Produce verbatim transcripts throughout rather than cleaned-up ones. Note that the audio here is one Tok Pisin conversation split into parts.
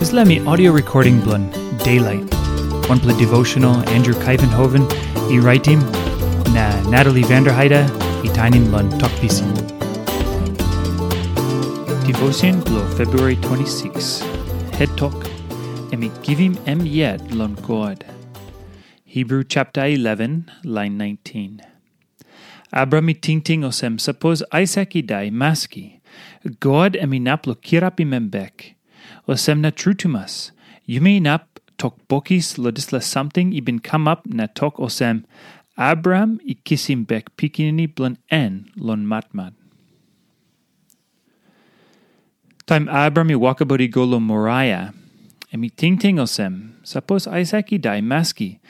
Dispela mi audio recording bilong Daylight, wanpela devotional Andrew Kaivenhoven i raitim, na Natalie Vanderheide i tainim long Tok Pisin. Devotion bilong February twenty-six. Het tok, em i givim em yet long God. Hebrew chapter eleven, line nineteen. Abraham i tingting olsem, sapos Aisak i dai, maski God em inap long kirapim em bek. Olsem na tru tumas, yumi inap tok bokis long dispela samting i bin kamap na tok olsem, Abraham i kisim bek pikinini bilong en long matmat. Taim Abraham i wokabaut i go long Moraia, em i tingting olsem, sapos Aisak i dai, maski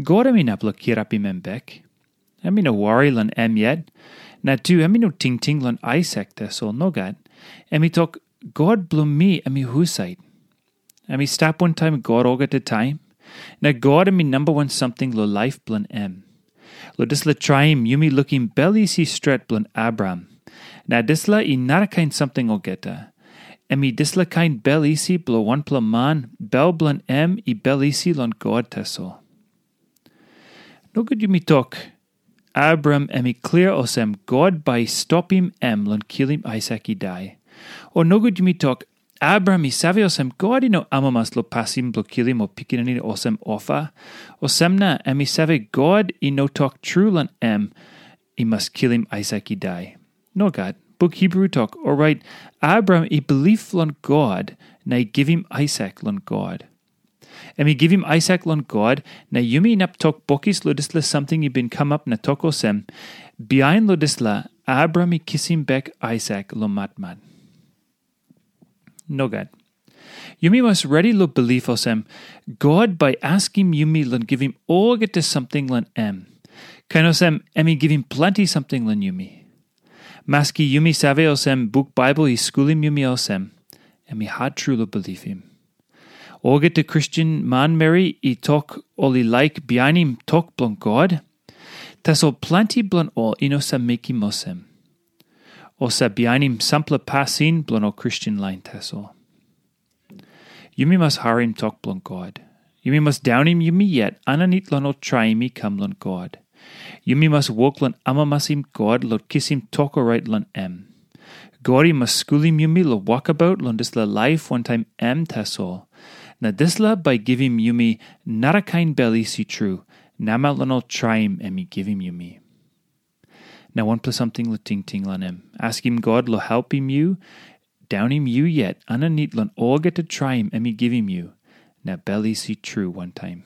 God em inap long kirapim em bek. Em i no wari long em yet, na tu em i no tingting long Aisak tasol, nogat. Em i tok, God bilong mi em i husat? Em i stap wantaim God olgeta taim, na God em i namba wan samting long laip bilong em. Long dispela traim yumi lukim bel isi stret bilong Abraham. Na dispela i narakain samting olgeta. Em i dispela kain bel isi bilong wanpela man, bel bilong em i bel isi long God tasol. Nogut yumi tok, Abraham em i klia olsem God bai i stopim em long kilim Aisak i dai. O nogut yumi tok, Abraham i save olsem God i no amamas long pasin bilong kilim ol pikinini olsem ofa. Olsem na em i save God i no tok tru long em i mas kilim Aisak i dai. Nogat, buk Hebrew tok, orait Abraham i bilip long God na i givim Aisak long God. Em i givim Aisak long God, na yumi inap tok bokis long dispela samting i bin kamap na tok olsem, bihain long dispela, Abraham i kisim bek Aisak long matmat. Nogat. Yumi mas redi long bilip olsem, God bai askim yumi long givim olgeta samting long em. Kain olsem, em i givim planti samting long yumi. Maski yumi save olsem buk Baibel i skulim yumi olsem, em i hat tru long bilipim. Olgeta Kristen manmeri i tok ol i laik bihainim tok bilong God, tasol planti bilong ol i no save mekim olsem. Ol save bihainim sampela pasin bilong ol Kristen lain tasol. Yumi mas harim tok bilong God. Yumi mas daunim yumi yet aninit long ol traim i kam long God. Yumi mas wok long amamasim God long kisim tok orait long em. God i mas skulim yumi long wokabaut long dispela laip wantaim em tasol. Na dispela bai givim yumi narakain bel isi tru, namel long ol traim em i givim yumi. Na wanpela samting long tingting long em. Askim God long helpim yu, daunim yu yet aninit long olgeta traim em i givim yu, na bel isi tru wantaim.